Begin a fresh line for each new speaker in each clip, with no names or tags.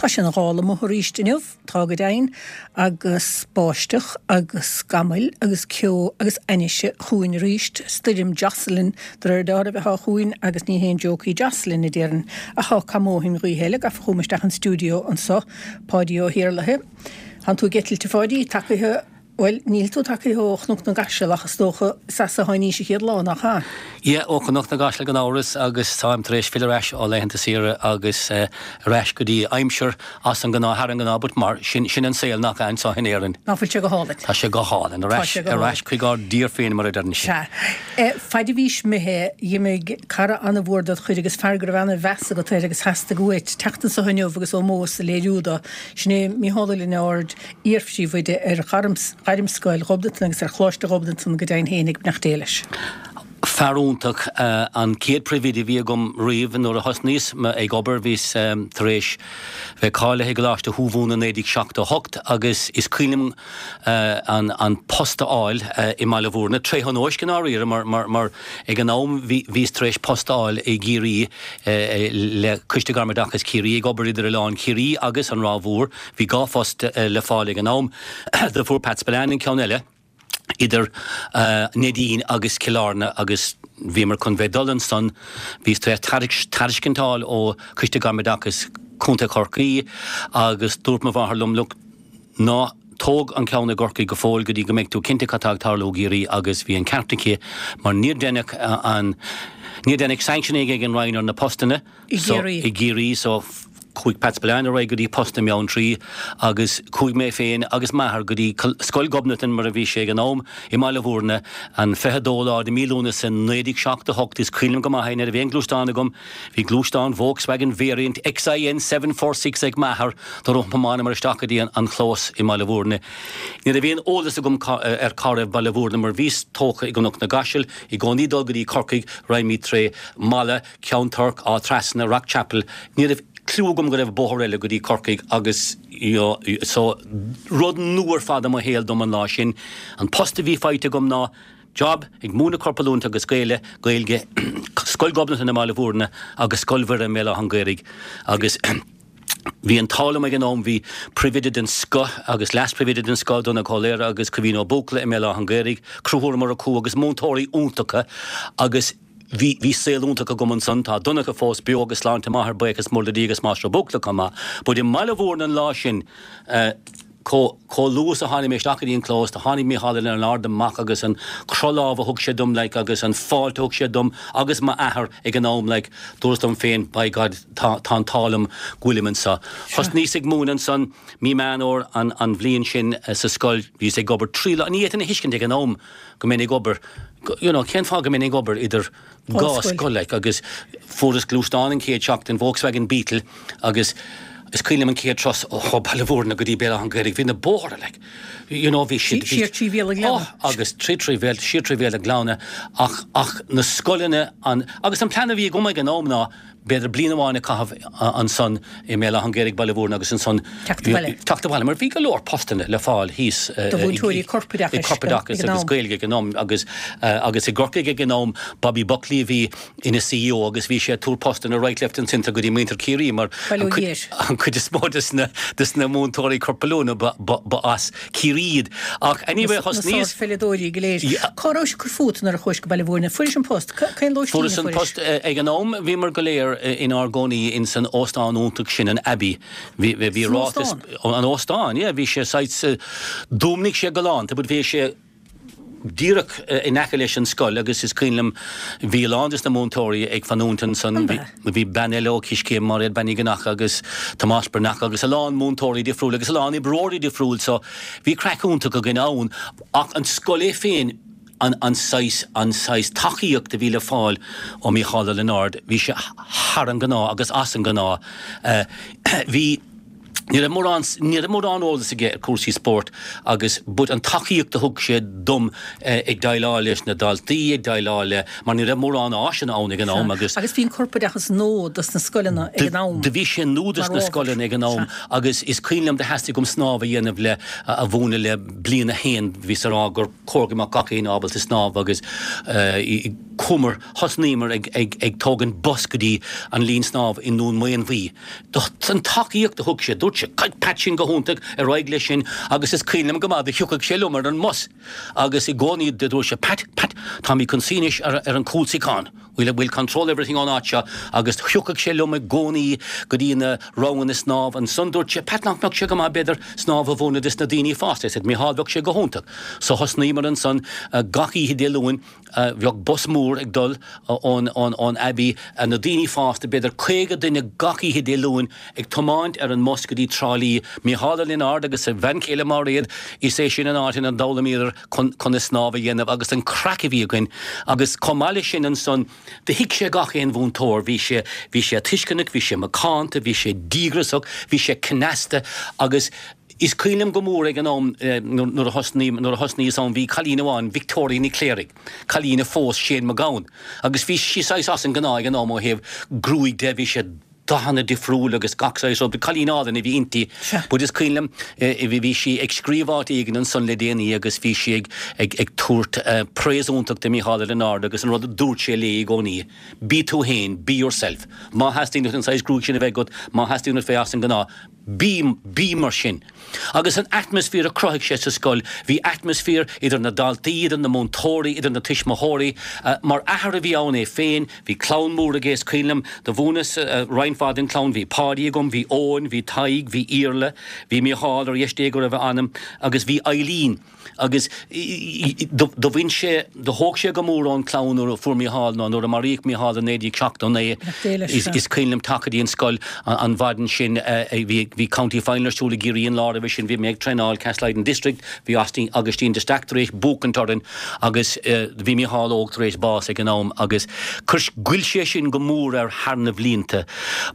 Tá sé ina ghála amuigh arís inniu, tá go deimhin, agus báisteach agus scamaill agus ceo agus ainnise chugainn arís. Stoirm Jocelyn de réir dealraimh atá chugainn agus ní haon joke í Jocelyn, a déarfainn. Ach tá cuma ó shin gaoithe eile gafa chugam isteach an stiúideo anso, Páidí Ó hIarlaithe. Tánn tú ag eitilt, a Pháidí, tagaithe. Bhuel, níl tú tagaithe ó Chnoc na gCaiseal ach is dócha is as a tháinís an chéad lá, nach ea?
Yeah, ó Chnoc na gCaiseal gan amhras agus táim tar éis filleadh ar ais ó laethanta saoire agus ar ais go dtí aimsir as an ngnáth, thar an ngnáth, but mar sin, sin an saol nach ea anseo in Éirinn.
Nach bhfuil sé go hálainn?
Tá sé go hálainn, ar ais, ar ais chuig ár dtír féin mar a deireann
siad. Sea. Faid a bhís imithe, dh'imigh cara an-mhór dod chuid agus fear go raibh an-mheas agat air agus theastaigh uait teacht anso inniu agus ómós a léiriú do, sin é Mícheál Ó Lionáird, iarphríomhoide ar Ghairmscoil Ghobnatan agus ar Choláiste Ghobnatan go deimhin féin ag beannacht Dé leis.
Fear iontach, an chéad phríomhoide a bhí agam riamh nuair a thosnaíos ag obair bhíos tar éis bheith cáilithe i gColáiste Thuamhumhan i 1978 agus is cuimhin liom an post a fháil i mBaile Bhúirne, tré thionóisc i ndáiríre mar ag an am bhíos tar éis post a fháil i gCiarraí le Coiste Gairmoideachais Chiarraí ag obair idir Oileán Chiarraí agus an Ráth Mhór. Bhí 2 phost le fáil ag an am. Do fuair Pat Spillane an ceann eile idir Neidín agus Cill Airne agus bhíomar chun bheith dul ansan. Bhíos tar éis tairiscint a fháil ó Choiste Gairmoideachais Chontae Chorcaí agus dúirt mo mháthair liom, look, ná tóg an ceann i gCorcaigh go fóill go dtí go mbeidh tú cinnte cad tá ag tarlú i gCiarraí agus bhí an ceart aici mar níor deineadh an, níor deineadh sanctioning ag an Roinn ar na postanna.
I gCiarraí.
I gCiarraí so chuaigh Pat Spillane ar aghaidh go dtí post i mBeanntraí agus chuaigh mé féin agus m'athair go dtí Scoil Ghobnatan mar a bhí sé ag an am i mBaile Bhúirne an 22 lá de mí Lúnasa 1978. Is cuimhin liom go maith é, ní raibh aon ghluaisteán agam, bhí gluaisteán Volkswagen Variant XIN 746 ag m'athair do thiomáineamar isteach go dtí an chlós i mBaile Bhúirne. Ní raibh aon eolas agam ar cá raibh Baile Bhúirne mar bhíos tógtha i gCnoc na gCaiseal i gcónaí dul go dtí Corcaigh raghaimid tré Mala Ceann Toirc, Áth Trasna, Rock Chapel, ní raibh cliú agam go raibh bóthar eile go dtí Corcaigh agus you know so rud nua ar fad i mo shaol dom an lá sin. An post a bhí faighte agam ná job ag múineadh corpoiliúint agus Gaeile, Gaeilge, Scoil Ghobnatan i mBaile Bhúirne agus Scoil Mhuire i mBéal Átha an Ghaorthaidh agus bhí an t-ádh liom ag an am, bhí príomhoide den scoth agus leas-phríomhoide den scoth, Donncha Ó Laoire agus Caoimhín Ó Buachalla i mBéal Átha an Ghaorthaidh, Conchúr Ó Murchú agus múinteoirí iontacha agus Bhí, bhí saol iontach agam ansan. Tá Donncha fós beo agus sláinte maith air, buíochas mór le Dia agus Máistir Ó Buachalla chomh maith. But i mBaile Bhúirne an lá sin, eh, chomh, chomh luath is a tháinig mé isteach go dtí an clós, do tháinig Mícheál Ó Lionáird amach agus an croth lámh a thug sé dom, like, agus an fáilte a thug sé dom agus m'athair ag an am, like, dúras liom féin, by God, tá, tá an t-ádh liom go bhfuilim anso. Thosnaíos ag múineadh ansan mí Meán Fhómhair an, an bhliain sin sa scoil, bhíos ag obair trí lá, ní fhéadfainn a thuiscint ag an am go mbeinn ag obair, you know, cén fáth go mbeinn ag obair idir dhá scoil, like, agus fuaireas gluaisteán an chéad seachtain, Volkswagen Beetle, agus is cuimhin liom an chéad turas ó Baile Bhúirne go dtí Béal Átha an Ghaorthaidh, bhí na bóithre, like, you know, bhí siad,
bhí, Siar trí Bhéal an Ghleanna.
Oh, agus trí trí Bhéal, siar trí Bhéal an Ghleanna, ach, ach na scoileanna, an, agus an plean a bhí agam ag an am ná, b'fhéidir bliain amháin a chaitheamh ansan i mBéal Átha an Ghaorthaidh, Baile Bhúirne agus ansan
Teacht abhaile.
teacht abhaile mar bhí go leor postanna le fáil thíos
Do mhúinteoirí corpoideachais
corpoideachais agus Gaeilge ag an am agus agus i gCorcaigh ag an am Bobby Buckley a bhí ina CEO agus bhí sé ag tabhairt postanna right left and centre go dtí muintir Chiarraí mar
Baile
an
Thiar.
an chuid is mó des na des na múinteoirí corpoiliúna ba ba ba as Ciarraí iad. Ach anyway
Na
thosnaíos
sárpheileadóirí go léir. Cá rabhais ag cur fút nuair a chuais go Baile Bhúirne? Fuairis an post? Cén lóistín a
Fuaireas an
fuairis?
post. Ag an am bhíomar go léir inár gcónaí ins an óstán iontach sin, an Abbey. Bhí bhí
San
ráiteas
óstán?
An óstán, yeah. Bhí sé saghas, d'fhuaimnigh sé galánta but bhí sé díreach in aice leis an scoil agus is cuimhin liom bhí a lán des na múinteoirí ag fanúint ansan.
An ea?
Bhí bean eile ó Coiscéim, Máiréad Bean Uí Dhonncha agus Tomás Breathnach agus a lán múinteoirí difriúil agus a lán oibreoirí difriúil so bhí craic iontach againn ann ach an scoil é féin an an saghas an saghas tacaíocht a bhí le fáil ó Mícheál Ó Lionáird bhí sé thar an gnáth agus as an gnáth. Bhí. Ní raibh mórán, ní raibh mórán eolas aige ar cúrsaí spóirt agus but an tacaíocht a thug sé dom ag déileáil leis na daltaí, ag déileáil le, mar ní raibh mórán áiseanna ann ag an am
agus. Agus bhí an corpoideachas nua dos na scoileanna ag an am.
Do bhí sé nua dos na scoileanna ag an am agus is cuimhin liom do theastaigh uaim snámh a dhéanamh le, a mhúineadh le bliain a haon, bhíos a rá gur chóir go mbeadh gach éinne ábalta snámh agus chuamar, thosnaíomar ag, ag, ag tógaint bus go dtí an linn snámh i nDún Maonmhuí. An tacaíocht a thug sé, dúirt sé, Pat sin go hiontach, ar aghaidh leis sin agus is cuimhin liom go maith do thiocfadh sé liom ar an mbus agus i gcónaí do dúirt sé, Pat, Pat, táimid chun suí anois ar ar an cúlsuíochán, we'll, we'll control everything ón áit seo agus thiocfadh sé liom i gcónaí go dtí na ranganna snámh. Ansan dúirt sé, Pat, nach mbeadh sé go maith b'fhéidir snámh a mhúineadh dos na daoine fásta? I said, Micheál, bheadh sé go hiontach. So thosnaíomar ansan gach oíche Dé Luain. Bheadh bus mór ag dul ón Abbey, na daoine fásta, b'fhéidir 50 duine gach oíche Dé Luain ag tiomáint ar an mbus go dtí Trá Lí. Micheál Ó Lionáird agus a bhean chéile Máiréad, is é sin an áit ina d'fhoghlaimíodar conas snámh a dhéanamh agus an craic a bhí againn agus chomh maith leis sin ansan do thuig sé gach aon mhúinteoir, bhí sé, bhí sé tuisceanach, bhí sé macánta, bhí sé díograsach, bhí sé cneasta agus Is cuimhin liom go mór ag an am nuair a thosnaigh, nuair a thosnaíos ann, bhí cailín amháin, Victoria Nic Cléirigh, cailín a phós Shane Mac Gabhann, agus bhí sí saghas as an ngnáth ag an am ó thaobh gruaig de, bhí sé dathanna difriúil agus gach saghas rud, cailín álainn a bhí inti. But is cuimhin liom, bhí sí ag scríobh áit éigin ansan le déanaí agus bhí sí ag, ag, ag tabhairt praise iontach do Mícheál Ó Lionáird agus an rud a dúirt sé léi i gcónaí, bí tú féin, be yourself. Má theastaíonn uait an saghas gruaig sin a bheith agat, má theastaíonn uait bheith as an ngnáth, Bí, bí mar sin. Agus an atmaisféar a chruthaigh sé sa scoil, bhí atmaisféar idir na daltaí, idir na múinteoirí, idir na tuismitheoirí. Mar athair a bhí ann é féin, bhí clann mór aige, is cuimhin liom, do mhúineas roinnt mhaith den chlann, bhí Páidí agam, bhí Eoin, bhí Tadhg, bhí Iarla, bhí Mícheál ar dheis Dé go raibh a anam, agus bhí Eileen. Agus do bhain sé, do thóg sé go mór ón chlann nuair a fuair Mícheál, nó nuair a maraíodh Mícheál i 1979, is cuimhin liom teacht go dtí an scoil an mhaidin sin, bhí County Final ar siúl i gCiarraí an lá roimhe sin, bhí mé ag traenáil Castlelyden District, bhí Augustine de Staic tar éis buachaint orainn agus bhí Mícheál Óg tar éis bás ag an am agus chuir, ghoill sé sin go mór air thar na bhlianta.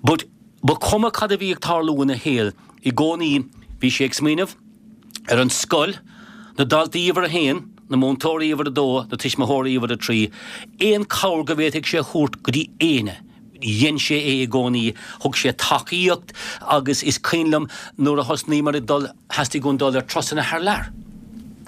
But ba chuma cad a bhí ag tarlú ina shaol, i gcónaí bhí sé ag smaoineamh, ar an scoil, na daltaí uimhir a haon, na múinteoirí uimhir a dó, na tuismitheoirí uimhir a trí, aon cabhair go bhféadfadh sé a thabhairt go dtí éinne, dhein sé é i gcónaí, thug sé tacaíocht agus is cuimhin liom nuair a thosnaíomar ag dul, theastaigh uainn dul ar turasanna thar lear.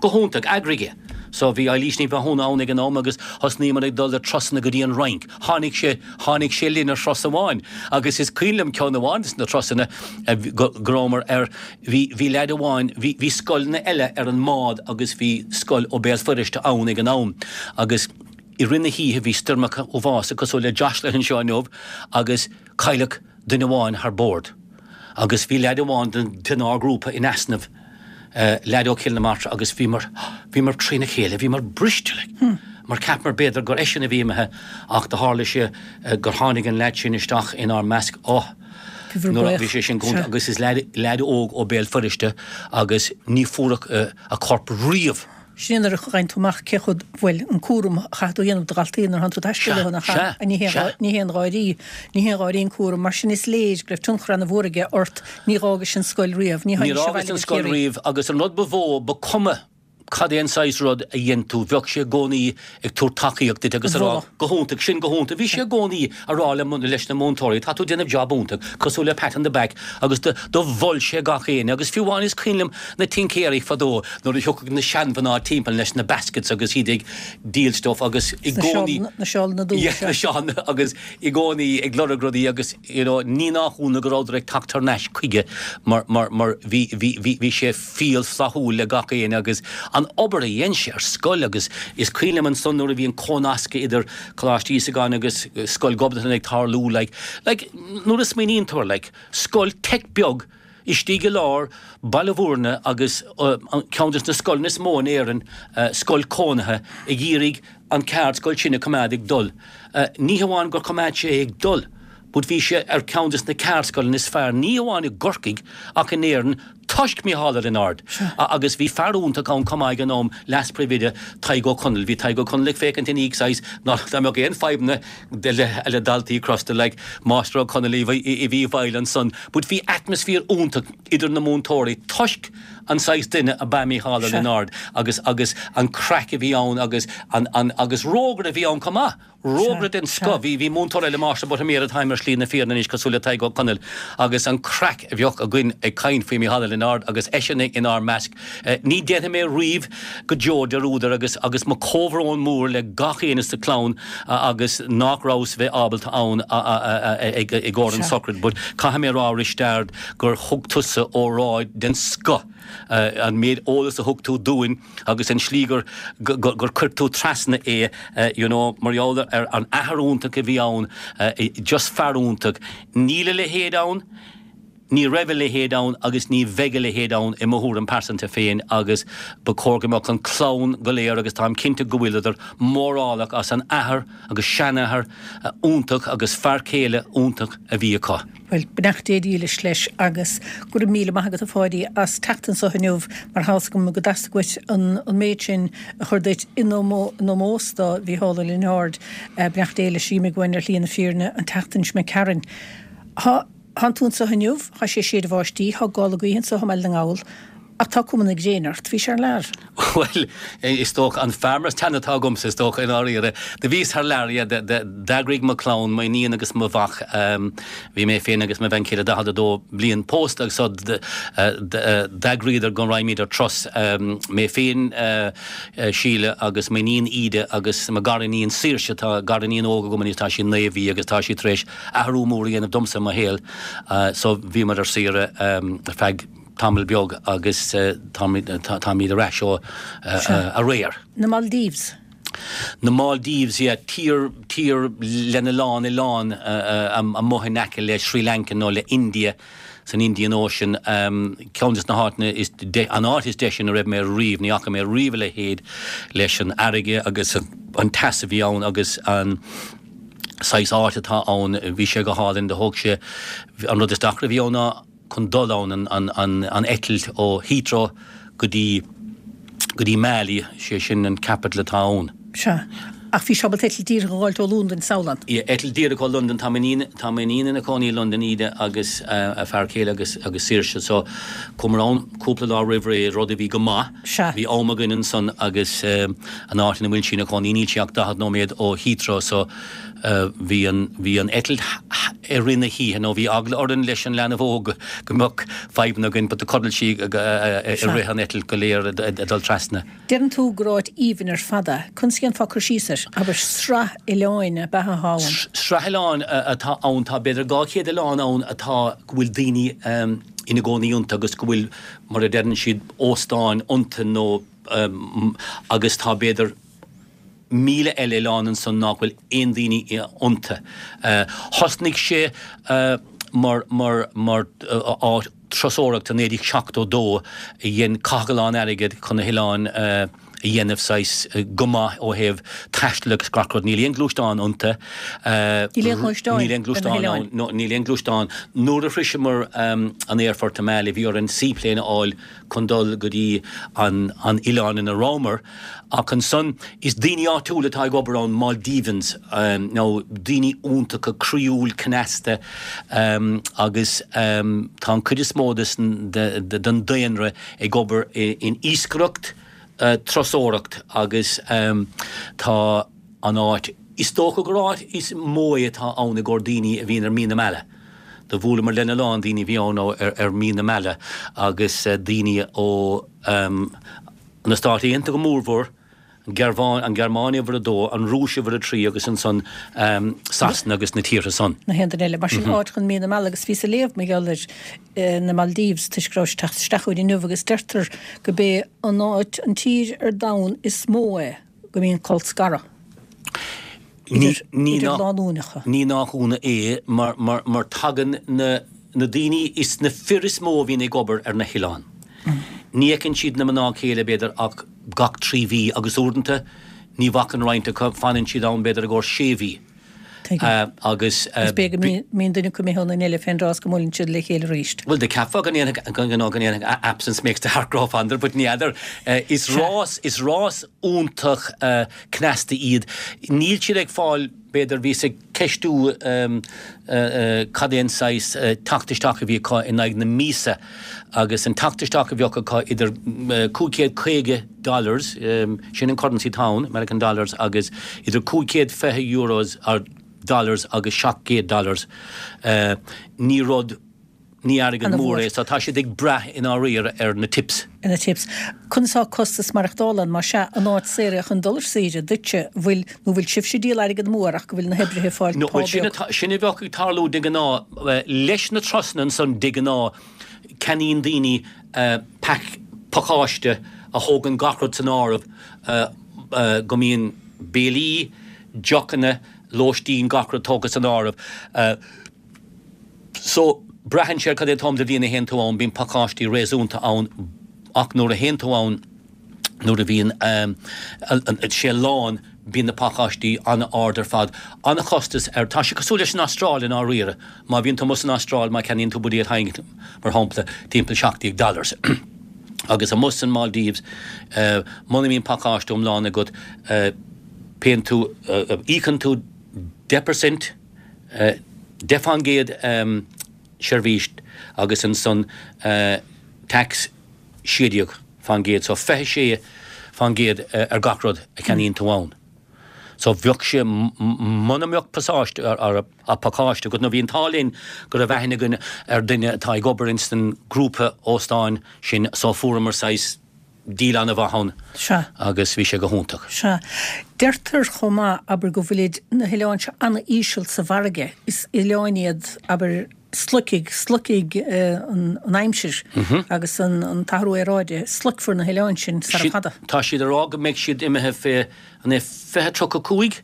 Go hiontach, eagraigh é. So bhí Eilís Ní Mhathúna ann ag an am agus thosnaíomar ag dul ar turasanna go dtí an Fhrainc. Tháinig sé, tháinig sé linn ar thuras amháin agus is cuimhin liom ceann amháin de na turasanna go rabhamar ar, Bhí, bhí leaid amháin, bhí, bhí scoileanna eile ar an mbád agus bhí scoil ó Béal Feirste ann ag an am agus i rith na hoíche bhí stoirmeacha uafásacha cosúil le Jocelyn anseo inniu agus cailleadh duine amháin thar bord agus bhí leaid amháin den, denár grúpa in easnamh, leaid ó Chill na Martra agus bhíomar, bhíomar trína chéile, bhíomar briste like mar cheapamar b'fhéidir gur eisean a bhí imithe ach do tharla sé gur tháinig an leaid sin isteach inár measc, oh. Nuair a bhí sé sin go agus is leaid óg ó Béal Feirste agus ní fuaireadh a chorp riamh.
Sin é nuair a fhaigheann tú amach cé chomh, bhuel, an cúram a chaithfidh tú a dhéanamh do dhaltaí nuair a thánn tú ag taisteal leo, nach ea? Ní haon gháirí, ní haon gháirí an cúram. Mar sin is léir go raibh tionchar ana-mhór aige ort. Ní dh'fhágais an scoil riamh.
Ní Níor fhágas an scoil riamh agus an rud ba mhó, ba cuma cad é an saghas rud a dhein tú, bheadh sé i gcónaí ag tabhairt tacaíocht duit agus a rá, go hiontach, sin go hiontach. Bhí sé i gcónaí a rá le, leis na múinteoirí, tá tú ag déanamh job iontach, cosúil le pat on the back agus do, do mhol sé gach éinne agus fiú amháin is cuimhin liom na tincéirí fadó nuair a thiocfadh na seanmhná timpeall leis na baskets agus iad ag díol stuff agus i gcónaí,
na seálanna
dúcha. Yeah, na seálanna agus i gcónaí ag lorg rudaí agus you know ní nach ionadh go rabhadar ag teacht thar n-ais chuige mar, mar, mar bhí, bhí, bhí, bhí sé fial flaithiúil le gach éinne agus an obair a dhein sé ar scoil agus is cuimhin liom ansan nuair a bhí an cónascadh idir Coláiste Íosagáin agus Scoil Ghobnatan ag tarlú like, like nuair a smaoiníonn tú air like scoil teic beag istigh i lár Baile Bhúirne agus ceann des na scoileanna is mó in Éirinn, scoil cónaithe ag iarraidh an ceardscoil sin a choimeád ag dul. Ní hamháin gur choimeád sé é ag dul but bhí sé ar ceann des na ceardscoileanna is fearr ní hamháin i gCorcaigh ach in Éirinn. Toisc Mícheál Ó Lionáird. Agus bhí fear iontach ann chomh maith ag an am, leas-phríomhoide, Tadhg Ó Conaill. Bhí Tadhg Ó Conaill ag féachaint ina dhiaidh saghas ná dá mbeadh aon fadhbanna le daltaí crosta like Máistir Ó Conaill a bhí i bhfeighil ansan. But bhí atmaisféar iontach idir na múinteoirí toisc an saghas duine ab ea Mícheál Ó Lionáird agus agus an craic a bhí ann agus an an agus rógaire a bhí ann chomh maith. Rógaire den scoth. Bhí, bhí múinteoir eile, Máistir Buttimer, atá ar Shlí na Fírinne anois, cosúil le Tadhg Ó Conaill, agus an craic a bheadh againn ag caint faoi Mícheál Ó Lionáird agus eisean inár measc. Ní déanfaidh mé riamh go deo dearúd air agus, agus mo comhbhrón mór le gach éinne sa chlann agus nach rabhas bheith ábalta ann ag, i gcomhair an sochraid. But caithfidh mé a rá, Risteard, gur thug tusa óráid den scoth. An méid eolas a thug tú dúinn, agus an slí gur gur chuir tú trasna é you know mar gheall ar an athair iontach a bhí ann, just fear iontach. Níl a leithéid ann, ní raibh a leithéid ann agus ní bheidh a leithéid ann i mo thuairim pearsanta féin agus ba chóir go mbeadh an clann go léir agus táim cinnte go bhfuileadar mórálach as an athair agus seanathair iontach agus fear céile iontach a bhí acu.
Bhuel, beannacht Dé dhílis leis agus go raibh míle maith agat a Pháidí as teacht anso inniu mar tá fhios agam go dteastaigh uait an méid sin a chur duit in ómós do Mhícheál Ó Lionáird. Beannacht Dé leis, d'imigh uainn ar shlí na fírinne an tseachtain seo imigh tharainn. Thánn tú anso inniu, tá sé ag séideadh báistí, tá gála gaoithe anso i mBaile na nGall ach tá cuma na gréine ort, bhís thar lear.
Bhuel, is dócha, an fear teann atá agamsa, is dócha, i ndáiríre. Do bhíos thar lear, yeah, d'eagraigh mo chlann, m'iníon agus mo mhac, bhí mé féin agus mo bhean chéile 42 bliain pósta agus so d'eagraíodar go raghaimid ar turas, mé féin, Síle agus m'iníon Íde agus mo ghariníon Saoirse, tá gariníon óg agam anois, tá sí naoi mhí agus tá sí tar éis athrú mór a dhéanamh domsa i mo shaol, so bhíomar ar saoire ar feadh tamall beag agus táimid ar ais ó aréir.
Na Maldives.
Na Maldives, yeah, tír, tír lena lán oileán amuigh in aice le Sri Lanka nó le India, san Indian Ocean. Ceann des na háiteanna is, an áit is deise ina raibh mé riamh, ní fhaca mé riamh a leithéid leis an fharraige agus an teas a bhí ann agus an saghas áit atá ann, bhí sé go hálainn, do thóg sé, an rud is deacra a bhí ann ná, chun dul ann, an eitilt ó Heathrow go dtí, go dtí Malé, sé sin an capital atá ann.
Sea. Ach bhís ábalta eitilt díreach a dh'fháilt ó Londain, samhlaím.
Yeah, eitilt díreach ó Londain, tá m'iníon, tá m'iníon ina cónaí i Londain, Íde, agus a fear céile agus, agus Saoirse, so chuamar ann cúpla lá roimh ré, rud a bhí go maith.
Sea.
Bhí am againn ansan agus an áit ina bhfuil sí ina cónaí, níl sí ach 40 nóiméad ó Heathrow, so Bhí an, bhí an eitilt i rith na hoíche nó bhí eagla orainn leis an leanbh óg go mbeadh fadhbanna againn but do chodail sí i rith an eitilt go léir ag dul trasna.
Deireann tú gur áit aoibhinn ar fad é. Conas a dhéanfá cur síos air? Abair, sraith oileáin ab ea atá ann?
Sraith oileán atá ann. Tá b'fhéidir 200 oileán ann atá, go bhfuil daoine ina gcónaí iontu agus go bhfuil, mar a deireann siad, óstáin iontu nó agus tá b'fhéidir 1,000 eile oileán ansan nach bhfuil aon daoine iontu. Thosnaigh sé mar mar mar áit turasóireachta i 1972 a dhein caitheadh a lán airgead chun na hoileáin a dhéanamh saghas go maith ó thaobh taistil agus gach rud. Níl aon gluaisteán iontu.
Níl aon ghluaisteán
Níl aon gluaisteán ann. No, níl aon gluaisteán. Nuair a shroiseamar an aerfort i Malé bhí orainn seaplane a fháil chun dul go dtí an an oileán ina rabhamar ach ansan is daoine áitiúil atá ag obair ann, Maldivians, nó daoine iontacha croíúil cneasta agus tá an cuid is mó den daonra ag obair in iascaireacht, turasóireacht agus tá an áit, is dócha gur áit is mó é atá ann i gcomhair daoine a bhíonn ar mí na meala. Do bhuaileamar lena lán daoine a bhí ann ar mí na meala agus daoine ó na Stáit Aontaithe go mórmhór, an Ghearmáin, an Ghearmáin uimhir a dó, an Rúis uimhir a trí agus ansan Sasana agus na tíortha san.
Na haon duine eile. Mar sin áit chun mí na meala agus bhíos ag léamh mar gheall ar na Maldives toisc go raibh sé ag teacht isteach chugainn inniu agus deirtear go b'é an áit, an tír ar domhan is mó é go mbíonn colscaradh idir lánúineacha.
Ní nach ionadh é mar tagann na daoine, is na fir is mó a bhíonn ag obair ar na hoileáin. Ní fheiceann siad na mná céile b'fhéidir ach gach 3 mhí agus uaireanta ní bhfacann roinnt acu, fanann siad ann b'fhéidir i gcomhair sé mhí. Agus.
Is b'fhéidir go mbíonn duine acu imithe ón eile fén dtráth is go mbuaileann siad le chéile arís.
Bhuel, do cheapfá go ndéanfadh, go ndéanfadh absence makes the heart grow fonder, but ní fheadar. Is rás, is rás iontach cneasta iad. Níl siad ag fáil, b'fhéidir, bhíos ag ceistiú cad é an saghas teacht isteach a bhí acu in aghaidh na míosa agus an teacht isteach a bheadh acu idir 550 dollars, sin an currency atá ann, American dollars, agus idir 520 euros or dollars agus 700 dollars, ní rud, ní airgead mór é, so tá siad ag brath i ndáiríre ar na tips.
Ar na tips. Conas tá costas maireachtála ann, más ea, an áit saor é chun dul ar saoire duitse, bhfuil, nó bhfuil sibhse ag díol airgead amú air ach go bhfuil na hoibrithe ag fáil
pá beag? Sin atá, sin a bheadh ag tarlú de ghnáth, leis na turasanna ansan de ghnáth, ceannaíonn daoine pack, pacáiste a thógann gach rud san áireamh, go mbíonn béilí, deochanna, lóistín, gach rud tógtha san áireamh. So, braitheann sé ar cad é an t-am de bhliain a théann tú ann, bíonn pacáistí réasúnta ann ach nuair a théann tú ann, nuair a bhíonn sé lán, bíonn na pacáistí an-ard ar fad. An-chostas air. Tá sé cosúil leis an Astráil i ndáiríre. Má bhíonn tú amuigh san Astráil, má cheannaíonn tú buidéal Heineken, mar shampla, timpeall 17 dollars. Agus amuigh san Maldives, muna mbíonn pacáiste iomlán agat, payann tú, íocann tú 10%, 10 fán gcéad seirbhís agus ansan tax 16 fán gcéad so 26 fán gcéad ar gach rud a cheannaíonn tú ann. So bheadh sé muna mbeadh pasáiste or pacáiste agat nó bhí an t-ádh linn go raibh aithne againn ar duine atá ag obair ins an grúpa óstáin sin so fuaireamar saghas deal an-mhaith ann
Sea.
agus bhí sé go hiontach.
Sea. Deirtear chomh maith, abair, go bhfuilid na hoileáin seo an-íseal sa bhfarraige. Is oileáin iad, abair, sloicfidh, sloicfidh an aimsir agus an t-athrú aeráide, sloicfear na hoileáin sin sara fada.
Tá siad ag rá go mbeidh siad imithe fé, an é 2035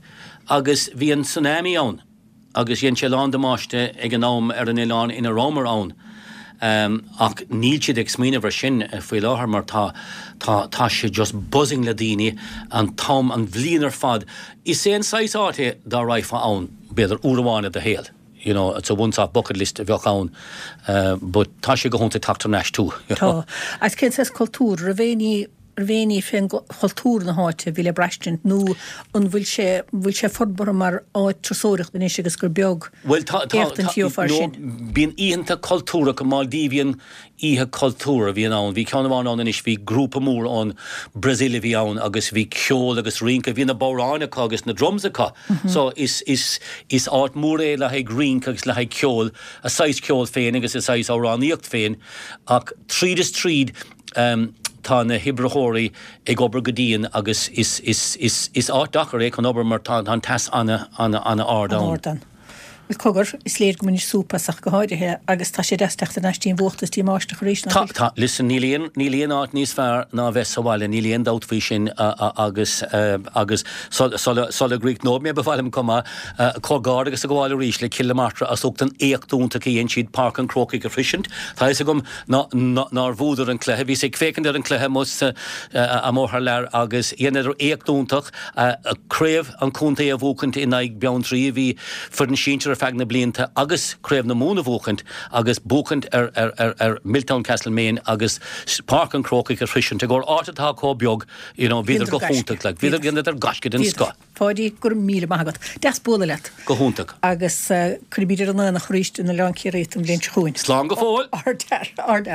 agus bhí an tsunami ann. agus dhein sé a lán damáiste ag an am ar an oileán ina rabhamar ann. Ach níl siad ag smaoineamh ar sin faoi láthair mar tá, tá, tá sé just buzzing le daoine an t-am, an bhliain ar fad. Is é an saghas áit é dá raghfá ann, b'fhéidir, uair amháin i do shaol. You know, it's a once off bucket list a bheadh ann. But tá sé go hiontach teacht thar n-ais too.
Tá. Agus cén saghas cultúr? Raibh aon ní raibh aon ní fén chultúr na háite a bhí le braistint nó an bhfuil sé, an bhfuil sé forbartha mar áit turasóireachta anois agus gur beag
Bhuel tá, tá,
éachtaint
tá,
a gheofá air
no,
sin?
bíonn oícheanta cultúrtha, Maldivian oíche cultúr a bhíonn ann, bhí ceann amháin ann anois, bhí grúpa mór ón Brazil a bhí ann agus bhí ceol agus rince, bhí na bodhráin acu agus na drums acu, so is, is, is áit mhór é le haghaidh rince agus le haghaidh ceol, a saghas ceol féin agus a saghas amhránaíocht féin ach tríd is tríd, Tá na hoibritheoirí ag obair go dian agus is áit deacair é chun obair mar tá an teas an-an-an-ard
ann. Bhuel, cogar, is léir go mbainís súp as ach go háirithe agus tá sé deas teacht thar n-ais dtí an bhfuacht is dtí an mbáisteach arís,
nach bhfuil? Tá, tá. Listen, níl aon, níl aon áit níos fearr ná bheith sa bhaile, níl aon dabht faoi sin agus, agus sula, sula gcríochnóidh mé ba mhaith liom chomh maith comhghairdeas a ghabháil arís le Cill na Martra as ucht an éacht iontach a dhein siad Páirc an Chrócaigh a shroisint. Tá fhios agam nár bhuadar an cluiche. Bhíos ag féachaint ar an cluiche amuigh amuigh thar lear agus dheineadar éacht iontach, craobh an chontae a bhuachaint in aghaidh Beanntraí a bhí foireann sinsir ar feadh na blianta agus craobh na Mumhan a bhuachaint agus buachaint ar ar ar Milltown Castlemaine agus Páirc an Chrócaigh a shroisint i gcomhair áit atá chomh beag you know bhíodar go hiontach like bhíodar dheineadar gaisce den scoth.
Pháidí, go raibh míle maith agat. Deas bualadh leat.
Go hiontach.
Agus cuirfimid ar an aonach arís in Oileán Ciarraí an bhliain seo chugainn.
Slán go fóill!
Ardfhear, ardfhear.